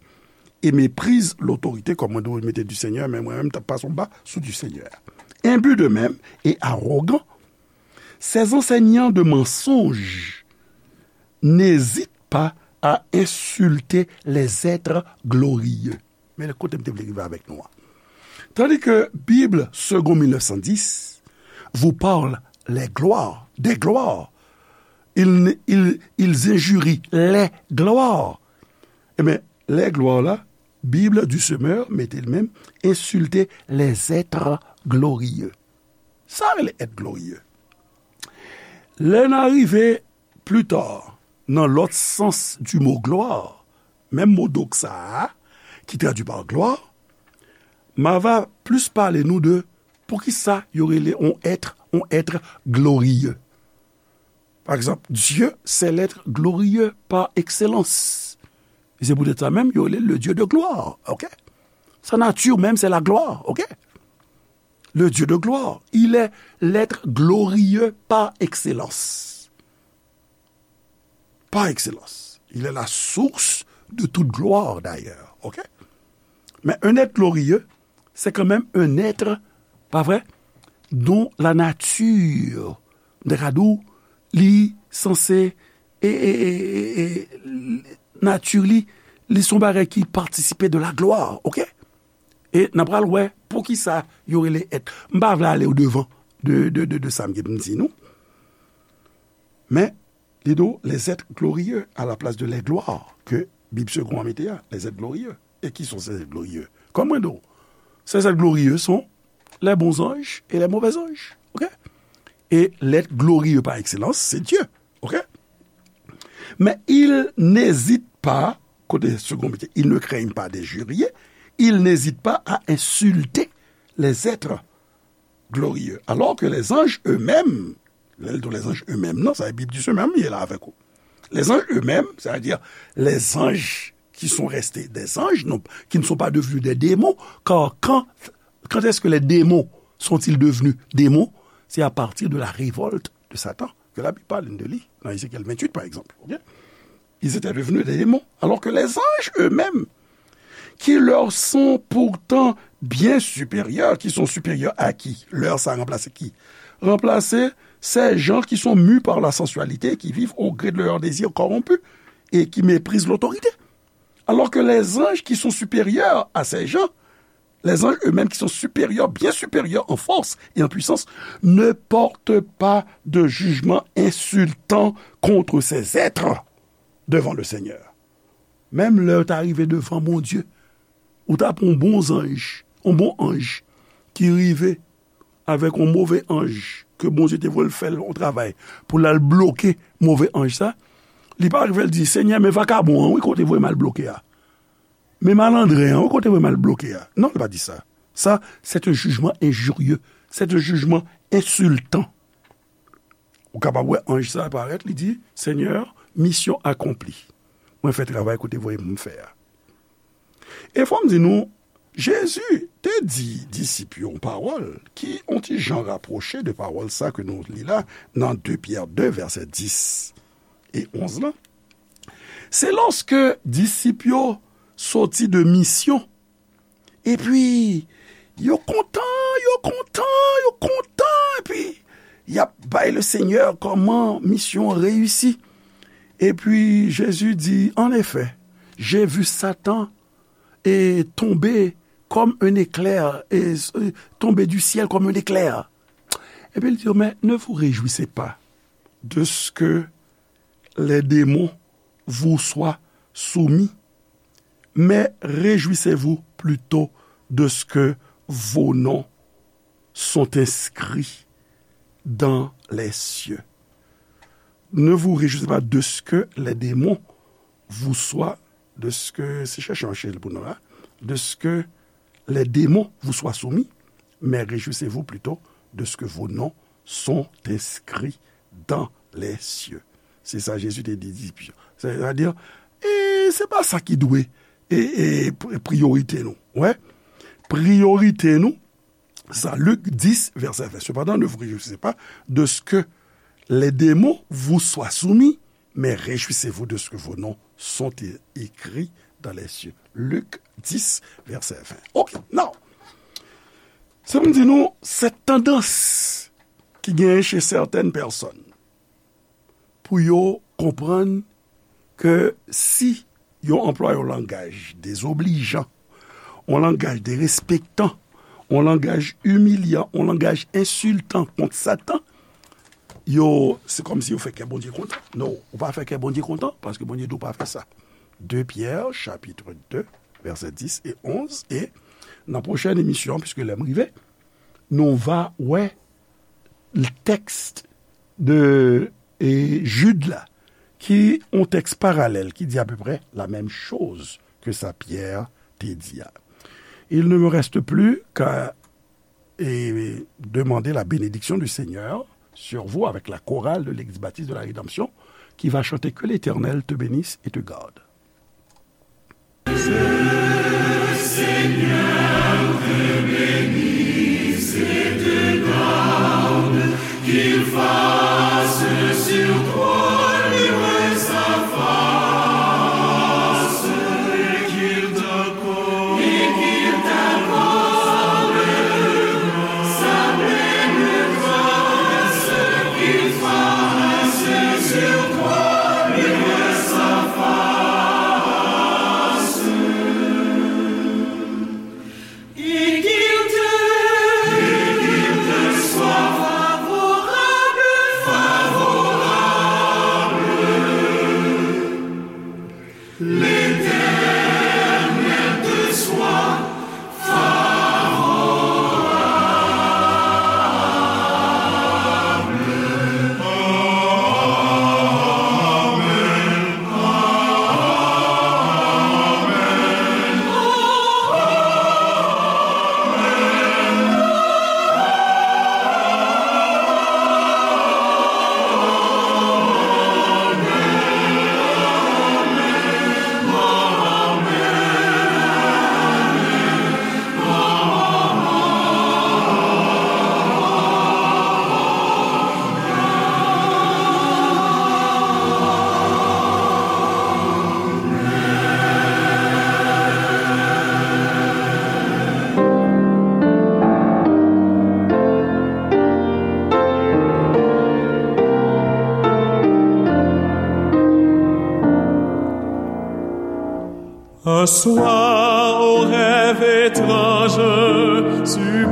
et méprisent l'autorité, kòm mwen di w, mete du Seigneur, men mwen menm, m t ap pase anba sou du Seigneur. Imbus d'eux-mêmes et arrogants, ces enseignants de mensonges n'hésitent pas à insulter les êtres glorieux. Men kote m te vle rive avèk nou an. Tandis que Bible Second mille neuf cent dix vous parle les gloires, des gloires. Ils, ils, ils injurient les gloires. Ebyen, les gloires la, Bible du Semeur mete l menm, insulter les êtres glorieux. Sa rele être glorieux. Lè n a rive pli ta, nan lòt sans du mot gloire, menm mo doxa a, ki tradui pa gloire, m a va plis pale nou de poukisa yo rele on être, on être glorieux. Pa egzanp, Dieu, c'est l'être glorieux par excellence. E se poutèt sa menm, yo rele le Dieu de gloire, ok? Sa nati menm, c'est la gloire, ok? Le Dieu de gloire, il est l'être glorieux par excellence. Par excellence. Il est la source de toute gloire, d'ailleurs. Ok? Men un être glorieux, c'est quand même un être, pa vre, dont la nature, m ta ka di w, li sanse, e, e, e, e, e, nati li, li se yon bagay ki patisipe de la gloire, ok? E n a pral wè poukisa yo rele être. M pa vle ale odevan de, de, de, de sa m gen pou m di nou. Men, li di w, les êtres glorieux à la place de les gloires, ke Bib Segond an mete a, les êtres glorieux. Et qui sont ces êtres glorieux? Kòm mwen di w, ces êtres glorieux sont les bons anges et les mauvais anges. Ok? Et l'être glorieux par excellence, c'est Dieu. Ok? Mais ils n'hésitent pas, kote Segond mete, ils ne craignent pas d'injurier, ils n'hésitent pas à insulter les êtres glorieux. Alors que les anges eux-mêmes, lè l di les anges eux-mêmes, non, sa e Bib di Semè a, m ye la avèk ou. Les anges eux-mêmes, c'est-à-dire les anges qui sont restés des anges, non, qui ne sont pas devenus des démons, car quand, quand est-ce que les démons sont-ils devenus démons? C'est à partir de la révolte de Satan, que la Bible parle de lui, dans Ézéchiel vingt-huit, par exemple. Ok? Ils étaient devenus des démons, alors que les anges eux-mêmes, qui leur sont pourtant bien supérieurs, qui sont supérieurs à qui? Leur, ça a remplacé qui? Remplacé ces gens qui sont mus par la sensualité, qui vivent au gré de leurs désirs corrompus et qui méprisent l'autorité. Alors que les anges qui sont supérieurs à ces gens, les anges eux-mêmes qui sont supérieurs, bien supérieurs en force et en puissance, ne portent pas de jugement insultant contre ces êtres devant le Seigneur. Menm lè w ta rive devan Bondye, ou ta pran yon bon zanj, yon bon anj ki rive avèk yon move anj ke Bondye te voye l fè l yon travay pou l al bloke move anj sa, li pa rive l di, Senyè, men vakabon an, wi, kote voye m al bloke a. Men malandren an, wi, kote voye m al bloke a. Non, li pa di sa. Sa, c'est un jugement injurieux. C'est un jugement insultant. Ou kapab wè anj sa parèt, li di, Senyè, misyon akonpli. Mwen fè travay kote voye m fè a. E fò m di nou, Jezi te di disip yo yon pawòl ki on ti jan rapwoche de pawòl sa ke nou li la nan de Pyè de, vèsè dis e onz lan. Se lòske disip yo soti de misyon, epi yo kontan, yo kontan, yo kontan, epi y ap bay le Senyè kòman misyon an reyisi. Epi Jezi di, En effet, j'ai vu Satan et tomber comme un éclair, et, et tomber du ciel comme un éclair. Epi l di yo, mais ne vous réjouissez pas de ce que les démons vous soient soumis, mais réjouissez-vous plutôt de ce que vos noms sont inscrits dans les cieux. Ne vous réjouissez pas de ce que les démons vous soient, de ce que, se chèche yon H pou nou la, de ce que les démons vous soient soumis, mais réjouissez-vous plutôt de ce que vos noms sont inscrits dans les cieux. Se sa Jezi te di disip yo. Sètadi, e se pa sa ki dwe e, e pri- priyorite nou. Wè, priyorite nou, sa, Lik dis, vèsè ven. Cependant, ne vous réjouissez pas de ce que les démons vous soient soumis, mais réjouissez-vous de ce que vos noms sont é- écrits dans les cieux. Lik dis, vèsè ven. Ok, now, sa m di nou, cette tendance ki genyen chez certaines personnes pou yo konprann ke si yo anplwaye yon langaj dezoblijan, yon langaj derespektan, yon langaj imilyan, yon langaj ensiltan kont Satan, yo, se kòmsi yo fè kè Bondye kontan. Non, ou pa fè kè Bondye kontan, paske Bondye di w pa fè sa. De Pyè, chapit de, vèsè dis e onz, e nan pwochèn emisyon, piske lè m rive, nou va wè tèks de e Jid la, ki yon tèks paralèl, ki di apeprè la menm choz ke sa Pyè te di a. Il ne me reste plus qu'à et demander la bénédiction du Seigneur sur vous avec la chorale de l'Église baptiste de la Rédemption qui va chanter Que l'Éternel te bénisse et te garde. Un soir, au rêve étrange, tu